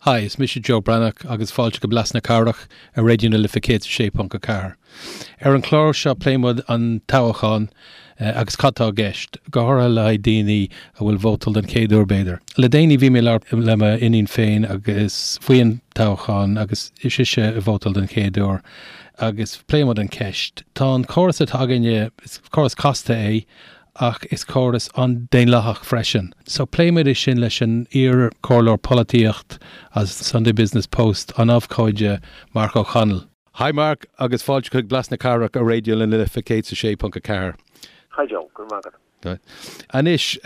Hi, is mise Joe Breathnach agus fáilte go Blas na Cathrach ar Raidió na Life 106.4. Ar an chlár seo pléann muid an toghchán agus cad tá i gceist, go háirithe le haghaidh daoine a bhfuil vótáil den chéad uair b'fhéidir. Le déanaí bhí mé ag labhairt le m'iníon féin agus faoi an toghchán agus is ise ag vótáil den chéad uair agus pléann muid an ceist. Tá an córas atá againne, is córas casta é ach is córas an-daonlathach freisin. So pléimid é sin leis an iar-chomhairleoir polaitíocht as Sunday Business Post, an abhcóide Marc Ó Conaill. Hi Mark, agus fáilte chuig Blas na Cathrach ar Raidió na Life 106.4. Hi Joe, go raibh maith agat. Anois,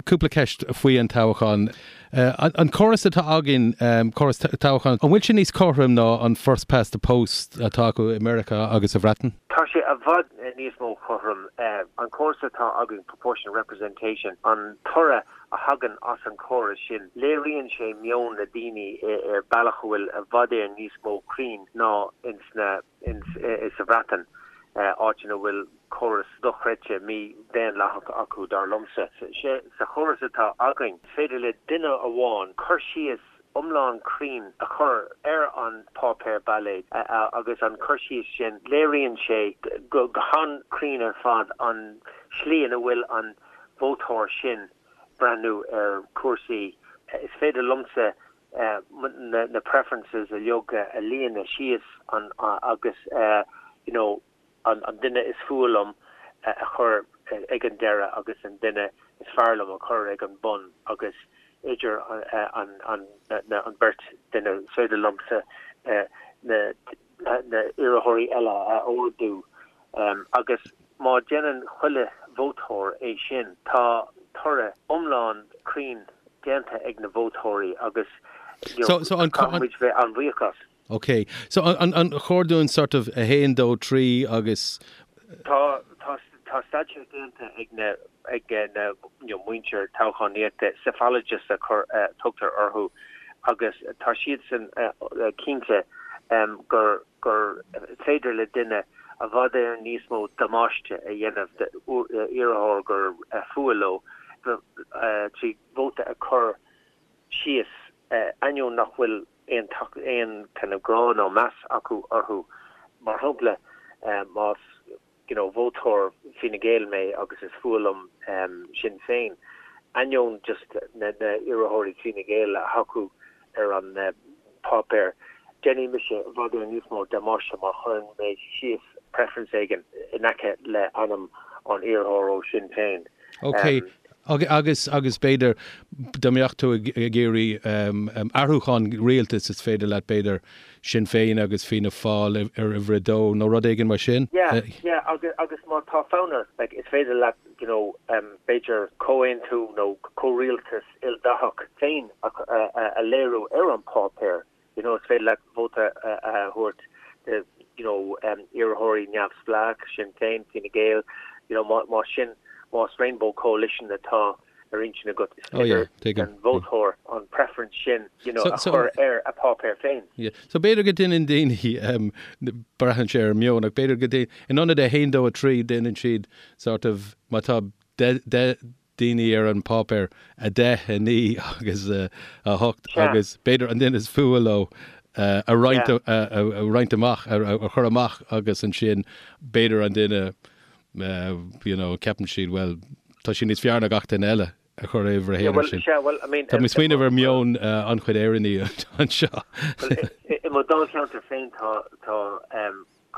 cúpla ceist faoi an toghchán. An córas atá againn, córas toghcháin, an bhfuil sé níos cothroime ná an first past the post atá acu i Meiriceá agus sa Bhreatain? Tá sé i bhfad níos mó cothrom. An córas atá againn, proportional representation, an toradh a thagann as an chóras sin, léiríonn sé meon na daoine ar bealach a bhfuil i bhfad Éireann níos mó cruinn ná ins na, ins, sa Bhreatain, áit ina bhfuil córas dochreidte mí-dhaonlathach acu, dar liomsa. Sa chóras atá againn, is féidir le duine amháin cur síos iomlán cruinn a chur ar an páipéar bailéid agus an cur síos sin, léiríonn sé go han-chruinn ar fad an slí ina bhfuil an vótóir sin breathnú ar chúrsaí. Is féidir liomsa na preferences uilig a líonadh síos agus you know, an duine is fuath liom a chur ag an deireadh agus an duine is fearr liom a chur ag an bun agus idir an bheirt duine is féidir liomsa na hiarrthóirí eile a ordú agus má déanann chuile vótóir é sin tá toradh iomlán cruinn déanta ag na vótóirí agus caithfidh muid bheith an-bhuíoch as. Ok. So an chóir dúinn sort of 1, 2, 3 agus. Tá, tá, tá staidéar déanta ag na, ag na, you know, muintir toghchánaíochta, psephologists a chur, a tugtar orthu, agus tá siadsan cinnte gur, gur féidir le duine i bhfad Éireann níos mó damáiste a dhéanamh d'iarrthóir gur fuath leo trí vóta a chur síos, ainneoin nach bhfuil aon aon kind of grá nó meas acu orthu. Mar shampla, más you know vótóir Fine Gael mé agus is fuath liom Sinn Féin, ainneoin just na na iarrthóirí Fine Gael a thacú ar an páipéar, déanfaidh mise i bhfad Éireann níos mó damáiste má chuireann mé síos preference éigin in aice le ainm an iarrthóir ó Sinn Féin. Ok, Agus, agus b'fhéidir, dá mbeadh tú ag iarraidh athrúchán rialtais, is féidir leat, b'fhéidir, Sinn Féin agus Fianna Fáil ar uimhir a dó nó rud éigin mar sin. Yeah, yeah, agus, agus má tá fonn ort, like, is féidir leat, you know, b'fhéidir comhaontú nó comhrialtas ildathach féin a, a, a léiriú ar an páipéar. You know, is féidir leat vóta a thabhairt do, you know, iarrthóirí neamhspleách, Sinn Féin, Fine Gael, you know, má sin, más Rainbow Coalition atá ar intinn agat, is féidir don vótóir an preference sin, you know, a chur ar a páipéar féin. Yeah. So b'fhéidir go ndéanann daoine, braitheann sé ar meon, ach b'fhéidir go ndéanann, in ionad 1, 2, 3, déanann siad sort of, má tá 10, daoine ar an bpáipéar, 10, 9 agus 8 agus b'fhéidir an duine is fuath leo a roinnt a roinnt amach, a chur amach agus ansin b'fhéidir an duine you know ceapann siad bhuel tá sé níos fearr ná gach duine eile a chur ar uimhir a haon ar sin. Tá mé ag smaoineamh ar meon an-chuid Éireannaigh anseo. I mo dháilcheantar féin tá tá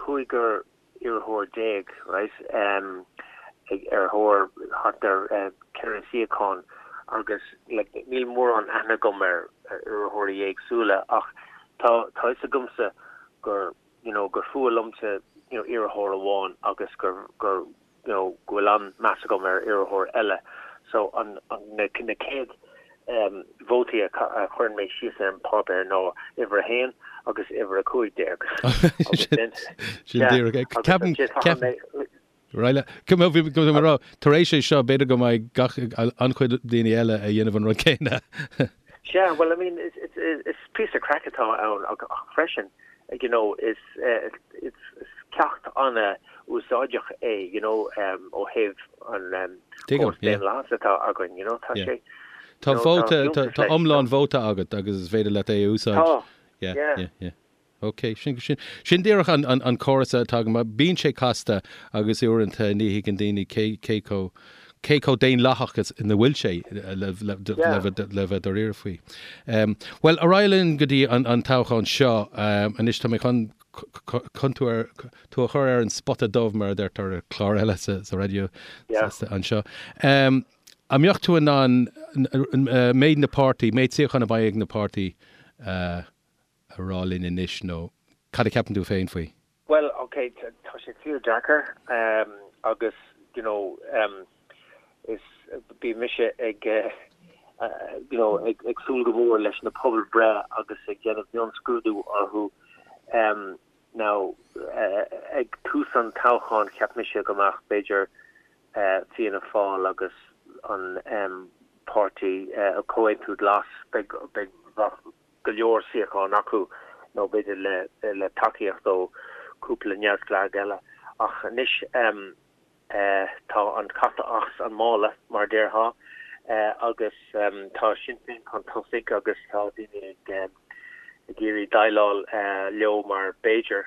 cúigear iarrthóir déag, right, ag ar thóir thart ar 4 suíochán agus like níl mórán aithne agam ar iarrthóirí éagsúla ach tá tá fhios agamsa gur you know gur fuath liomsa you know iarrthóir amháin agus gur gur you know go bhfuil an-meas agam ar iarrthóir eile so an an na na céad vótaí a chuireann mé síos ar an bpáipéar ná uimhir a haon agus uimhir a 15. Agus sin Sin díreach é. Ceapaim, ceapaim, right, bhí go mé rá, tar éis é seo, b'fhéidir go mbeidh gach, an-chuid daoine eile a dhéanamh an rud céanna. Sea, well, I mean, it's, it's píosa craic atá ann ach freisin, you know, is, is ceacht an-úsáideach é, you know, ó thaobh an córas daonlathas atá againn, you know, tá sé. Tá vóta, tá iomlán vóta agat agus is féidir leat é a úsáid. Tá, yeah. Yeah, yeah. Ok, sin, sin, sin díreach an, an, an córas atá agam. Bíonn sé casta agus uaireanta ní thuigeann daoine cé, cé chomh, cé chomh daonlathach is ina bhfuil sé le, le, le, le bheith dáiríre faoi. Um, bhuel, ar aghaidh linn go dtí an, an toghchán seo. Um, anois tá mé chun, chun tú, ar, tú a chur ar an spota dubh mar a deirtear ar chlár eile sa, sa raidió yeah. anseo. Um, an mbeadh tú in ann méid na páirtí, méid suíochán a bheidh ag na páirtí uh, a rá linn anois nó cad a cheapann tú féin faoi? Bhuel, ok, tá sé fíor deacair agus you know is bíonn mise ag you know ag ag súil go mór leis na pobalbhreith agus ag déanamh mionscrúdú orthu. Now ag tús an toghcháin cheap mise go mbeadh b'fhéidir Fianna Fáil agus an páirtí Comhaontú Glas beidh beidh bheadh go leor suíochán acu, nó b'fhéidir le tacaíocht ó cúpla neamhspleách eile. Ach anois tá an cat as an mála, mar a déarfá, agus tá Sinn Féin chun tosaigh agus tá daoine ag iarraidh déileáil leo mar b'fhéidir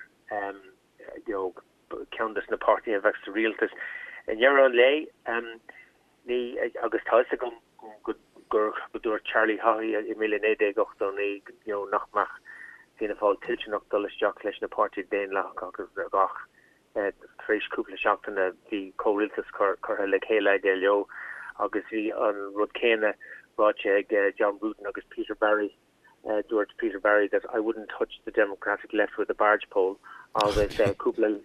you know ceann des na páirtithe a bheadh sa rialtas. I ndeireadh an lae, ní, agus tá fhios agam go gur go dúirt Charlie Haughey i 1989 you know nach mbeadh Fianna Fáil toilteanach dul isteach leis na páirtithe daonlathacha agus ach tar éis cúpla seachtaine bhí comhrialtas curtha le chéile aige leo agus bhí an rud céanna ráite ag John Bruton agus Peter Barry. Dúirt Peter Barry that I wouldn't touch the Democratic left with a barge pole agus cúpla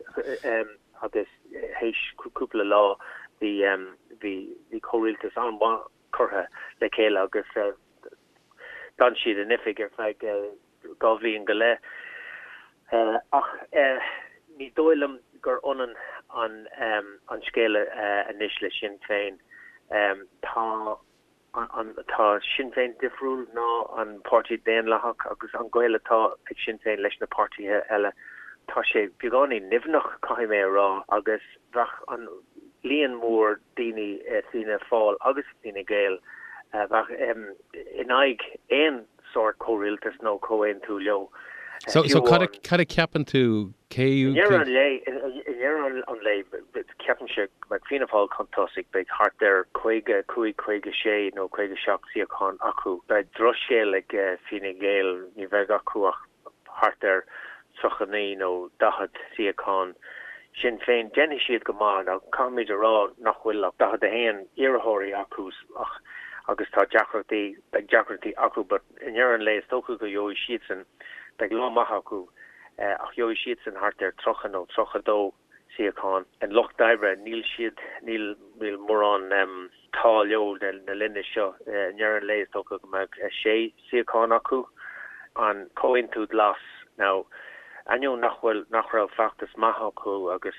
agus théis cúpla lá bhí bhí bhí comhrialtas an-mhaith curtha le chéile agus d'fhan siad in oifig ar feadh 2 bhliain go leith. Ach ní dóigh liom gur ionann an an scéal anois le Sinn Féin. Tá Tá Sinn Féin difriúil ná an Páirtí Daonlathach agus an gaol atá ag Sinn Féin leis na páirtithe eile, tá sé beagáinín nimhneach, caithfidh mé a rá, agus bheadh an líon mór daoine i Fianna Fáil agus Fine Gael, bheadh in aghaidh aon sórt comhrialtas nó comhaontú leo. So, so cad a, cad a ceapann tú, cé, I ndeireadh an lae, i ndeireadh an lae, ceapaimse go mbeidh Fianna Fáil chun tosaigh, beidh thart ar 55, 56 nó 57 suíochán acu. Beidh drochscéal ag Fine Gael, ní bheidh acu ach thart ar 39 nó 40 suíochán. Sinn Féin, déanfaidh siad go maith. Now, caithfimid a rá nach bhfuil ach 41 iarrthóirí acu ach agus tá deacrachtaí, beidh deacrachtaí acu but i ndeireadh an lae is dócha go gheobhaidh siadsan, beidh lá maith acu ach gheobhaidh siadsan thart ar 30 nó 32 suíochán. An Lucht Oibre, níl siad, níl, níl mórán t-ádh leo na linne seo. I ndeireadh an lae is dócha go mbeidh sé suíochán acu. An Comhaontú Glas, now ainneoin nach bhfuil, nach raibh feachtas maith acu agus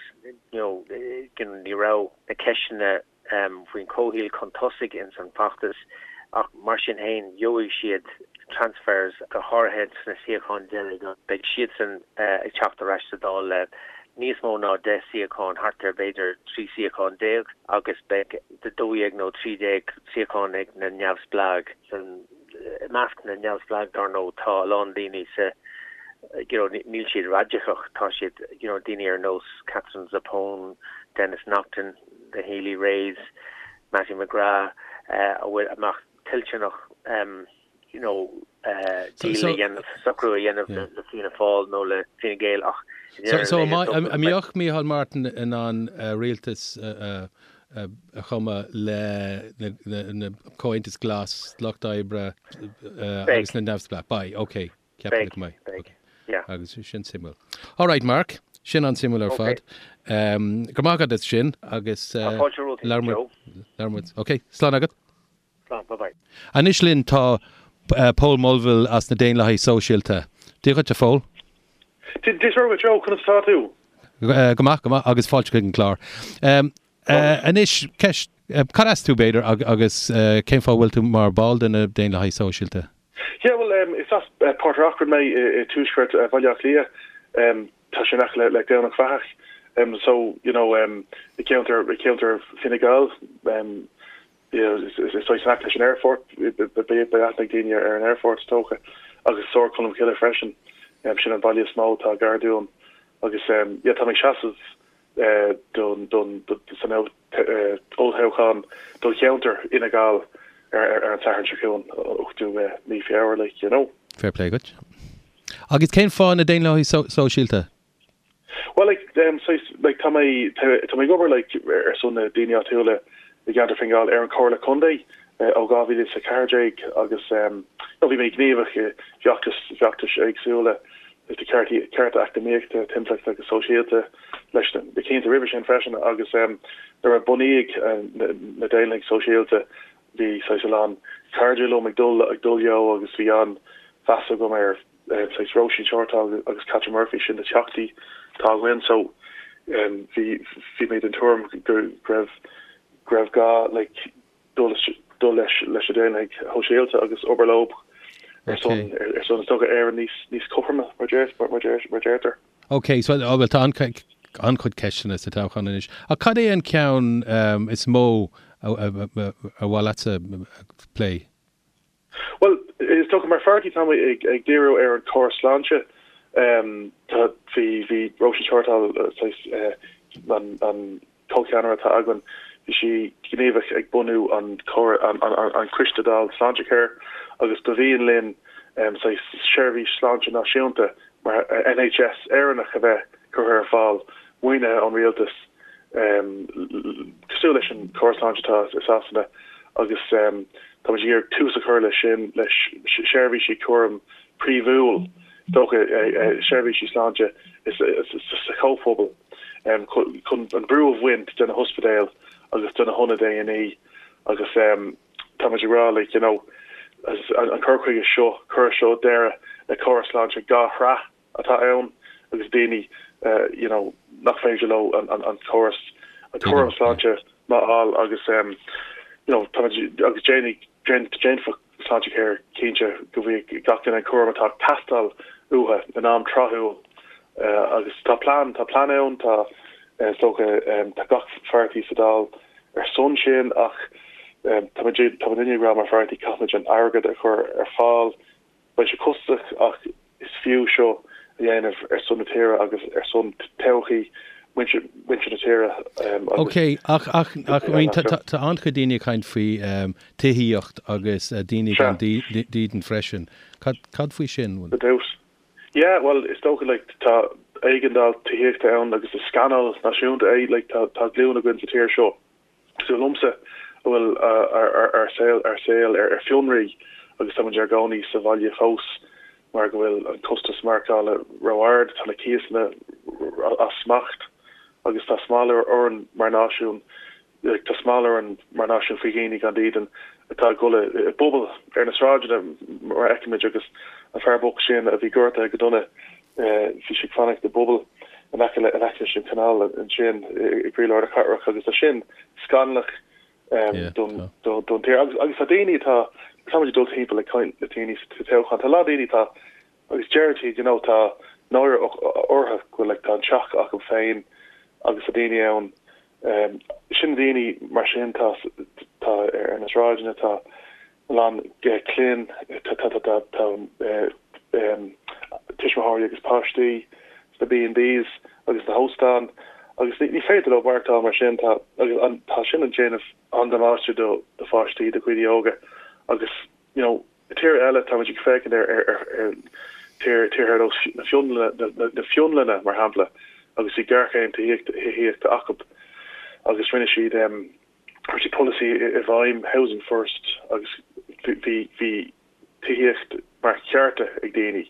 you know ní raibh na ceisteanna faoin chomhshaol chun tosaigh ins an bhfeachtas ach mar sin féin gheobhaidh siad transfers go háirithe sna suíocháin deiridh. Beidh siadsan ag teacht ar ais sa Dáil le níos mó ná 10 suíochán, thart ar b'fhéidir 13 suíochán agus beidh 12 nó 13 suíochán ag na neamhspleáigh. I measc na neamhspleách dar ndóigh tá a lán daoine sa you know níl siad raidiceach, tá siad you know daoine ar nós Katherine Zappone, Denis Naughten, the Healy-Raes, Mattie McGrath a bhfuil a mbeadh toilteanach you know deal a dhéanamh, socrú a dhéanamh le Fianna Fáil nó le Fine Gael ach So an mbeadh Micheál Martin in ann rialtas a chumadh le na Comhaontas Glas, Lucht Oibre agus na Neamhspleách? Beidh, ok. Ceapaim go mbeidh. Beidh, yeah. Agus sin suimiúil. All right, Mark, sin an-suimiúil ar fad. Go raibh maith agat as sin agus Tá fáilte romhat, Joe. Labhair muid. Ok, slán agat. Slán, bye bye. Anois linn tá Pól Mulvihill as na Daonlathaithe Sóisialta. Dia dhuit, a Phóil. Dia duit, Joe, conas atá tú? Go maith, go maith, agus fáilte chuig an gclár. Anois, ceist, cad as tú, b'fhéidir, agus cén fáth a bhfuil tú mar ball de na Daonlathaithe Sóisialta? Yeah, bhuel, is as Port ar Acrainn mé i tuaisceart Bhaile Átha Cliath. Tá sé in aice le Domhnach Bheathach. So, you know, i gceantar, i gceantar Fine Gall. Is saghas in aice leis an aerfort, beidh aithne ag daoine ar an aerfort is dócha, agus Sord Cholm Cille freisin, sin an baile is mó atá gar dúinn. Agus yeah, tá mé ag seasamh don don san olltoghchán do cheantar Fhine Gall ar an Satharn seo chugainn, 8ú mí Feabhra, like, you know. Fair play duit. Agus cén fáth na Daonlathaigh Sóisialta? Bhuel, like, saghas, like, tá mé, tá mé ag obair, like, ar son na daoine áitiúla i gceantar Fine Gall ar an Chomhairle Contae ó 2014 agus, you know, bhí mé gníomhach i bhfeachtais, feachtais éagsúla do ceartaí, cearta eacnamaíochta, timpeallachta agus sóisialta leis na cianta roimhe sin freisin agus nuair a bunaíodh na Daonlathaigh Sóisialta bhí saghas a lán cairde liom ag dul, ag dul leo agus bhí an-mheas agam ar saghas Róisín Shortall agus Catherine Murphy, sin na teachtaí atá againn. So bhí bhí mé den tuairim go raibh go raibh gá like dul dul leis leis na Daonlathaigh Shóisialta agus obair leo ar son ar son is dócha Éire níos níos cothroime mar deir mar deir mar deirtear. Ok, so oh, well tá an-chuid ceisteanna sa toghchán anois. Ach cad é an ceann is mó a a mhaith leatsa plé? Bhuel, is dócha mar pháirtí tá muid ag díriú ar an chóras sláinte. Tá, bhí, bhí Róisín Shortall, saghas, an, an comhcheannaire atá againn, bhí sí gníomhach ag bunú an chór, an, an, an Coiste Dála Sláintecare agus ba mhian linn saghas seirbhís sláinte náisiúnta mar NHS Éireannach a bheith curtha ar fáil, maoinithe ón rialtas. Cosúil leis an chóras sláinte atá i Sasana agus tá muid ag iarraidh tús a chur leis sin, le seirbhísí cúraim príomhúil, is dócha, seirbhísí sláinte sa chomhphobal chun an brú a bhaint de na hospidéil agus de na hionaid A&E agus tá muid ag rá like you know an cur chuige seo, cuirfidh seo deireadh le córas sláinte dhá shraith. atá ann agus daoine you know nach féidir leo an an córas an cúram sláinte maith a fháil agus you know tá muid agus déanfaidh déanfaidh Sláintecare cinnte go bhfaighidh gach duine an cúram atá ag teastáil uathu in am tráthúil agus tá plean tá plean ann tá is dócha tá gach pháirtí sa Dáil ar son sin ach tá muid tá muidinne ag rá mar pháirtí caithfimid an airgead a chur ar fáil Beidh sé costasach ach is fiú seo a dhéanamh ar son na tíre agus ar son todhchaí muintir na tíre agus. Ok, ach, ach, ach, I mean, tá, tá, tá an-chuid daoine ag caint faoi tithíocht agus daoine gan dídean freisin. Cad, cad faoi sin? Go deimhin. Yeah, bhuel, is dócha, like, tá éigeandáil tithíochta ann agus is scannal náisiúnta é, like, tá, tá glúin againn sa tír seo. Cosúil liomsa, a bhfuil ár saol ár saol ar fionraí agus tá muid ár gcónaí sa bhaile fós mar go bhfuil an costas maireachtála ró-ard, tá na cíosanna as smacht agus tá smál orainn mar náisiún, tá smál orainn mar náisiún faoi dhaoine gan dídean atá ag dul i bpubaill ar na sráideanna mar a fheicimid agus an fear bocht sin a bhí gortaithe go dona Bhí sé ag fanacht i bpuball in aice in aice leis an chanáil ansin i gcroílár na cathrach agus tá sin scannalach don don tír. Agus agus tá daoine atá tá muid ag dul timpeall ag caint le daoine sa toghchán, tá a lán daoine atá agus deir siad you know tá náire orthu go bhfuil like tá an teach acu féin agus tá daoine ann sin daoine mar sin tá tá ar na sráideanna tá a lán clainne, tá tuismitheoirí agus páistí sna B&Bs agus sna hóstáin agus ní féidir leo maireachtáil mar sin. Tá agus tá sin ag déanamh an-damáiste do pháistí, do dhaoine óga agus you know i tír eile tá muid ag féachaint ar ar tír tíortha ar nós na Fionlainne na Fionlainne mar shampla agus bhí géarchéim tithíochta acu agus rinne siad Chuir siad polasaí i bhfeidhm, Housing First, agus bhí bhí tithíocht mar chearta ag daoine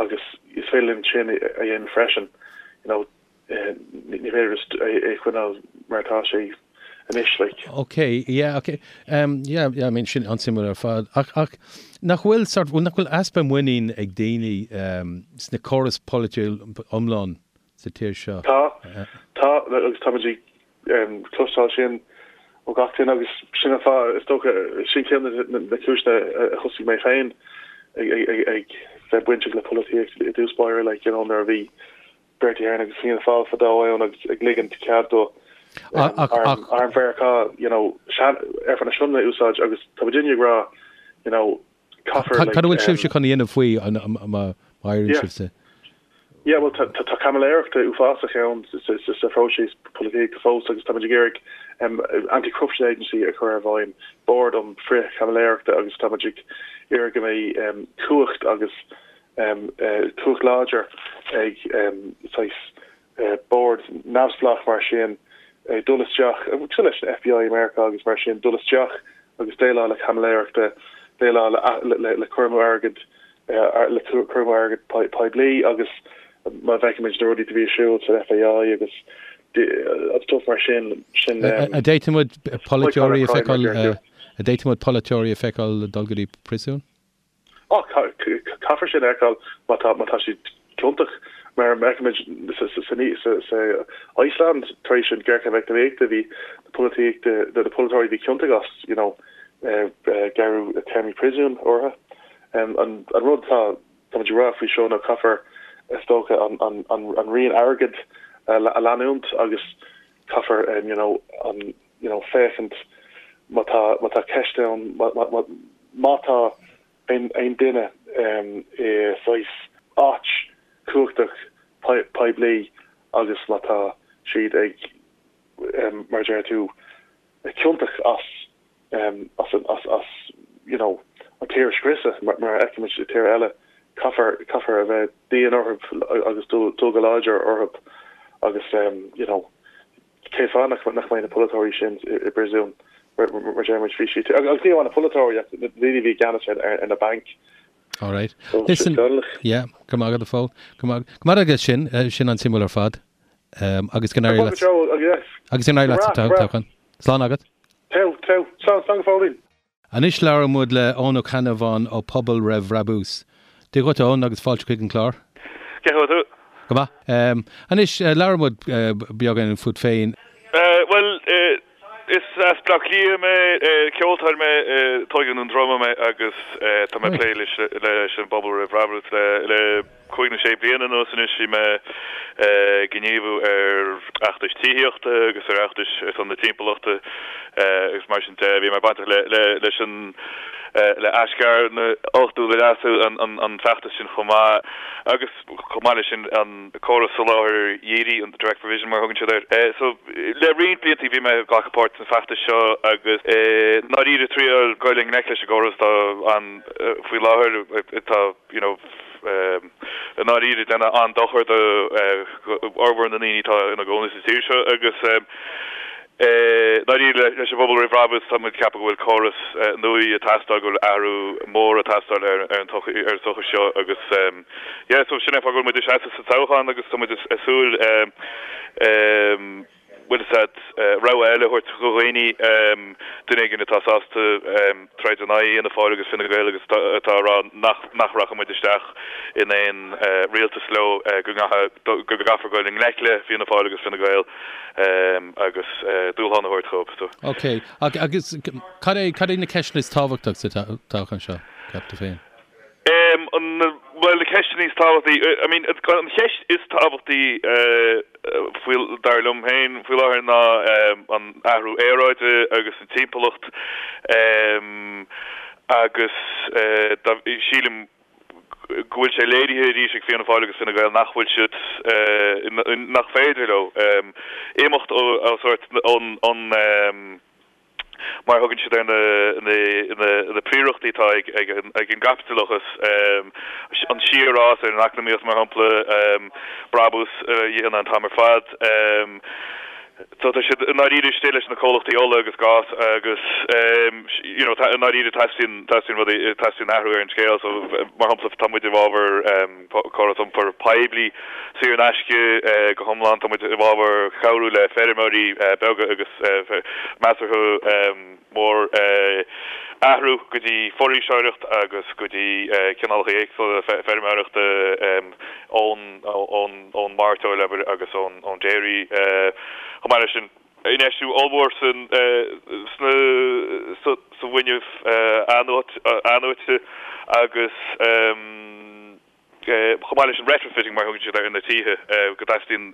agus is féidir linn sin a dhéanamh freisin, you know, ní féidir just é a choinneáil mar atá sé anois, like. Ok, yeah, ok. Um, yeah, yeah, I mean, sin an-suimiúil ar fad. Ach, ach nach bhfuil sort, nach bhfuil easpa muinín ag daoine um, sna córas polaitiúil iomlán sa tír seo? Tá, tá, agus tá muid ag cloisteáil sin ó gach duine agus sin an fáth, is dócha, sin ceann de na cúiseanna a thosaigh mé féin ag bheith bainteach le polaitíocht i dtús báire, like, you know, nuair a bhí Bertie Ahern agus Fianna Fáil fadó ann agus ag ligint cead do. Arm Mheiriceá, you know, aerfort na Sionainne a úsáid agus tá muidinne ag rá, you know, caithfear like. Cad a bhfuil sibhse chun a dhéanamh faoi má éiríonn sibhse? Yeah, bhuel tá tá caimiléireacht uafásach ann sa phróiseas polaitíochta fós agus táimid ag iarraidh Anti-Corruption Agency a chur i bhfeidhm, bord um frith-chaimiléireachta agus táimid ag iarraidh go mbeidh cumhacht agus cumhacht láidir ag saghas bord neamhspleách mar sin dul isteach, cosúil leis an FBI i Meiriceá agus mar sin, dul isteach agus déileáil le caimiléireachta, déileáil le cur amú airgid, le cur amú airgid poiblí agus má bhfeicimid na rudaí a bhí ar siúl san FAI agus stuff mar sin, sin. An bhféadfadh muid polaiteoirí a feiceáil, an bhféadfadh muid polaiteoirí a feiceáil dul go dtí príosún? Á, caithfear sin a fheiceáil má tá, má tá siad ciontach. Mar a fheicimid sa Iceland tar éis an ghéarchéim eacnamaíochta bhí na polaitíochta, na polaiteoirí a bhí ciontach as, you know, gearradh téarmaí príosúin orthu. An rud atá, táimid ag rá faoi seo ná caithfear, is dócha, an, an, an rian airgid a leanúint agus caithfear, you know, an, you know, féachaint má tá, má tá ceist ann, má, má, má tá aon, aon duine i saghas áit chumhachtach poiblí agus má tá siad ag, mar a deir tú, ciontach as, as an, as, as, you know, an tír a scriosadh, mar, mar a fheicimid i tíortha eile, caithfear, caithfear a bheith dian orthu agus dul, dul go láidir orthu agus, you know, Cén fáth nach mbeidh na polaiteoirí sin i bpríosún, mar a deir muid, bhí siad, agus ní amháin na polaiteoirí ach na daoine a bhí i gceannas ar na bainc. All right. Listen, yeah, go maith agat a Phóil. Go maith go maith agat sin, sin an-suimiúil ar fad. Agus go n-éirí leat. Agus go n-éirí leat sa toghchán. Slán agat. Teo, teo. Slán, slán go fóillín. Anois labhróidh muid le Eoin Ó Ceannabháin ó Pobal Roimh Bhrabús. Dia dhuit a Eoin agus fáilte chuig an clár. Cén chaoi a bhfuil tú? Go maith. Anois labhair muid beagán fút féin. Bhuel, is as Bleá Cliath mé, ceoltóir mé, tógadh i nDún Droma mé agus tá mé ag plé leis an bPobal Roimh Bhrabús le cúig nó sé bliana anuas anois. Bhí mé ag gníomhú ar fheachtais tithíochta agus ar fheachtais ar son na timpeallachta agus mar sin de. Bhí mé bainteach leis an le Aisghairm ochtú le leasú an feachtas sin chomh maith agus chomh maith leis sin an córas soláthair dhírigh, an direct provision mar a thugann siad air. So le roinnt blianta bhí mé ag glacadh páirt san feachtas seo agus i ndáiríre triail goil i ngleic leis an gcóras atá ann faoi láthair atá you know, i ndáiríre déanamh an-dochar do fhormhór na ndaoine atá ina gcónaí sa tír seo agus i ndáiríre leis an bPobal Roimh Bhrabús tá muid ag ceapadh go bhfuil córas nua ag teastáil, go bhfuil athrú mór ag teastáil ar an tsochaí seo agus yeah so sin é an fáth go bhfuil muid ag seasamh sa toghchán agus tá muid ag súil bhfuil fhios a'd, rogha eile a thabhairt do dhaoine, duine éigin atá sásta troid in aghaidh Fhianna Fáil agus Fine Gael agus atá ag rá nach nach rachaidh muid isteach in aon rialtas leo, go go gcaithfear goil i ngleic le Fianna Fáil agus Fine Gael agus dúshlán a thabhairt dhóibh. So. Ok, agus cad é cad é na ceisteanna is tábhachtaí sa toghchán seo, ceap tú féin? Bhuel, na ceisteanna is tábhachtaí, I mean, an cheist is tábhachtaí faoi, dar liom féin, faoi láthair ná an athrú aeráide agus an timpeallacht agus sílim go bhfuil sé léirithe arís ag Fianna Fáil agus Fine Gael nach bhfuil siad, nach féidir leo imeacht ó sórt ón mar a thugann siad ar na príorachtaí atá ag an gcaipitileachas, an síorfhás ar an eacnamaíocht, mar shampla, brabús a dhéanamh an t-am ar fad. So tá siad i ndáiríre istigh leis na comhlachtaí ola agus gás agus you know i ndáiríre teastaíonn teastaíonn rudaí teastaíonn athrú ar an scéal. So mar shampla tá muid i bhfabhar córas iompair poiblí saor in aisce go hiomlán. Tá muid i bhfabhar cabhrú le feirmeoirí beaga agus measartha mór athrú go dtí foraoiseoireacht agus go dtí cineálacha éagsúla feirmeoireachta ón mairteoil, abair, agus ón dairy. Chomh maith leis sin, infheistiú ollmhór sa bhfuinneamh athnuaite agus. Chomh maith leis an retrofitting mar a thugann siad air ar na tithe, go dteastaíonn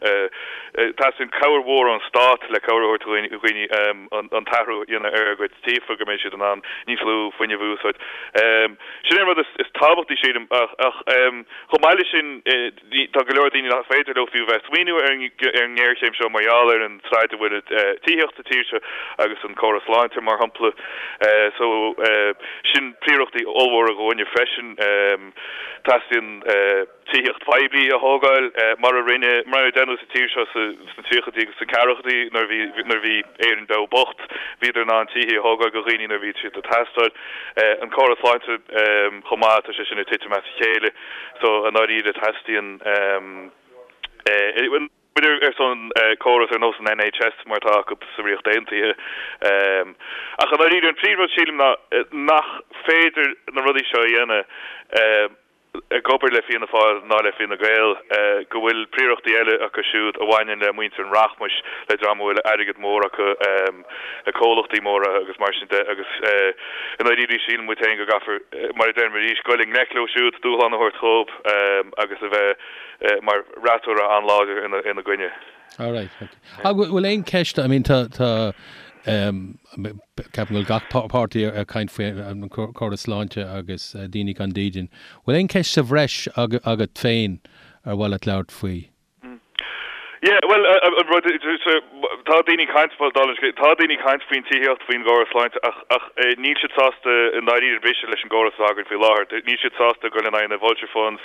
teastaíonn cabhair mhór ón stát le cabhair a thabhairt do dhaoine an t-athrú a dhéanamh ar a gcuid tithe go mbeidh siad in ann níos lú fuinnimh a úsáid. Sin é an rud is tábhachtaí sílim ach chomh maith leis sin tá go leor daoine nach féidir leo fiú bheith ag smaoineamh ar an ngéarchéim seo mar gheall ar an staid a bhfuil tithíocht sa tír seo agus an córas sláinte mar shampla. So sin príorachtaí ollmhóra dhúinne freisin. Teastaíonn tithíocht phoiblí a thógáil mar a rinne, mar a deineadh sa tír seo sna tríochaidí agus sna ceathrachaidí nuair a bhí, nuair a bhí Éirinn beo bocht. Bhíodar in ann tithe a thógáil do dhaoine nuair a bhí siad ag teastáil. An córas sláinte chomh maith, tá sé sin ag titim as a chéile. So, i ndáiríre, teastaíonn. Muid ar son córas ar nós an NHS mar atá acu sa Ríocht Aontaithe. Ach i ndáiríre, an príomhrud sílim ná nach féidir na rudaí seo a dhéanamh ag obair le Fianna Fáil ná le Fine Gael, go bhfuil príorachtaí eile acu siúd a bhaineann le muintir an rachmais, le dream a bhfuil airgead mór acu, le comhlachtaí móra agus mar sin de agus i ndáiríre síleann muid féin go gcaithfear, mar a deirim arís, goil i ngleic leo siúd, dúshlán a thabhairt dhóibh agus a bheith mar fhreasúra an-láidir ina gcoinne. All right, ok. Ach bhfuil aon cheist, I mean tá, tá, ceapaim go bhfuil gach páirtí ag caint faoi an córas sláinte agus daoine gan dídean. Bhfuil aon cheist sa bhreis agat féin ar mhaith leat labhairt faoi? Yeah, bhuel, an rud, tá daoine ag caint, dála an scéil, tá daoine ag caint faoin tithíocht, faoin gcóras sláinte ach, ach níl siad sásta i ndáiríre briseadh leis an gcóras atá againn faoi láthair. Níl siad sásta dul in aghaidh na vulture funds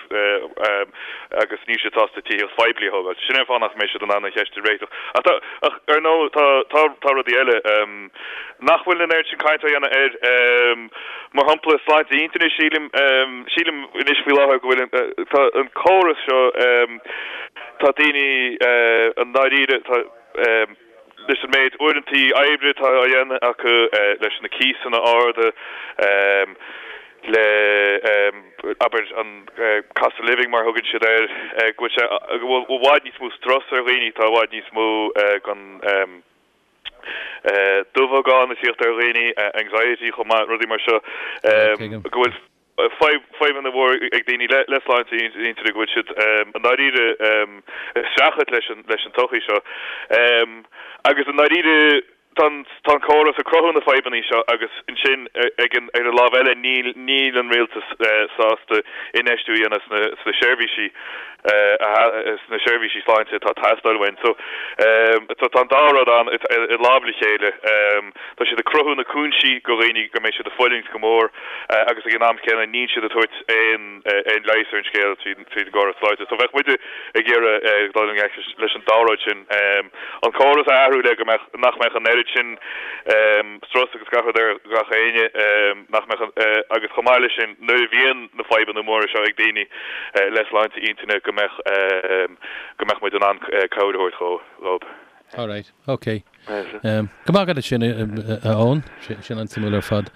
agus níl siad sásta tithíocht phoiblí a thógáil. Sin é an fáth nach mbeidh siad in ann an cheist a réiteach. Ach tá, ach ar ndóigh, tá, tá, tá rudaí eile nach bhfuil an oiread sin caint á dhéanamh air. Mar shampla, sláinte intinne, sílim, sílim anois faoi láthair go bhfuil an, tá an córas seo, tá daoine i ndáiríre, tá, leis an méid uaireantaí oibre atá á dhéanamh acu, leis na cíosanna arda, le, abair, an cost of living mar a thugann siad air, go bhfuil sé, go bhfuil i bhfad níos mó strus ar dhaoine, tá i bhfad níos mó den dubhagán ag tíocht ar dhaoine, anxiety chomh maith, rudaí mar seo, go bhfuil fadhbanna mhóra ag daoine le sláinte intinne, go bhfuil siad i ndáiríre ag streachailt leis an leis an tsochaí seo. Agus i ndáiríre tá an tá an córas ag cruthú na fadhbanna seo agus ansin ag an ar an lámh eile níl níl an rialtas sásta infheistiú a dhéanamh sna sna seirbhísí sna seirbhísí sláinte atá ag teastáil uainn. So tá an dá rud ann i lámh le chéile. Tá siad ag cruthú na cúinsí go dhaoine go mbeidh siad ag fulaingt go mór agus ag an am céanna níl siad ag tabhairt aon aon leigheas ar an scéal tríd tríd an gcóras sláinte. So bheadh muide ag iarraidh dul i ngleic leis an dá rud sin. An córas a athrú le go mbeadh nach mbeadh an oiread sin strus agus gach rud ar gach éinne nach mbeadh agus chomh maith leis sin nuair a bhíonn na fadhbanna móra seo ag daoine le sláinte intinne go mbeadh go mbeadh muid in ann cabhair a thabhairt dhóibh. All right, ok. Go maith agat sin a Eoin, sin an-suimiúil ar fad.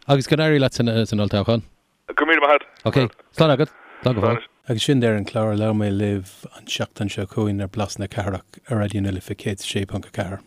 Agus go n-éirí leat san olltoghchán. Go raibh míle maith agat. Ok, slán agat. Slán go fóill. Agus sin deireadh an chláir, labhróidh mé libh an tseachtain seo chugainn ar Blas na Cathrach ar Raidió na Life 106.4.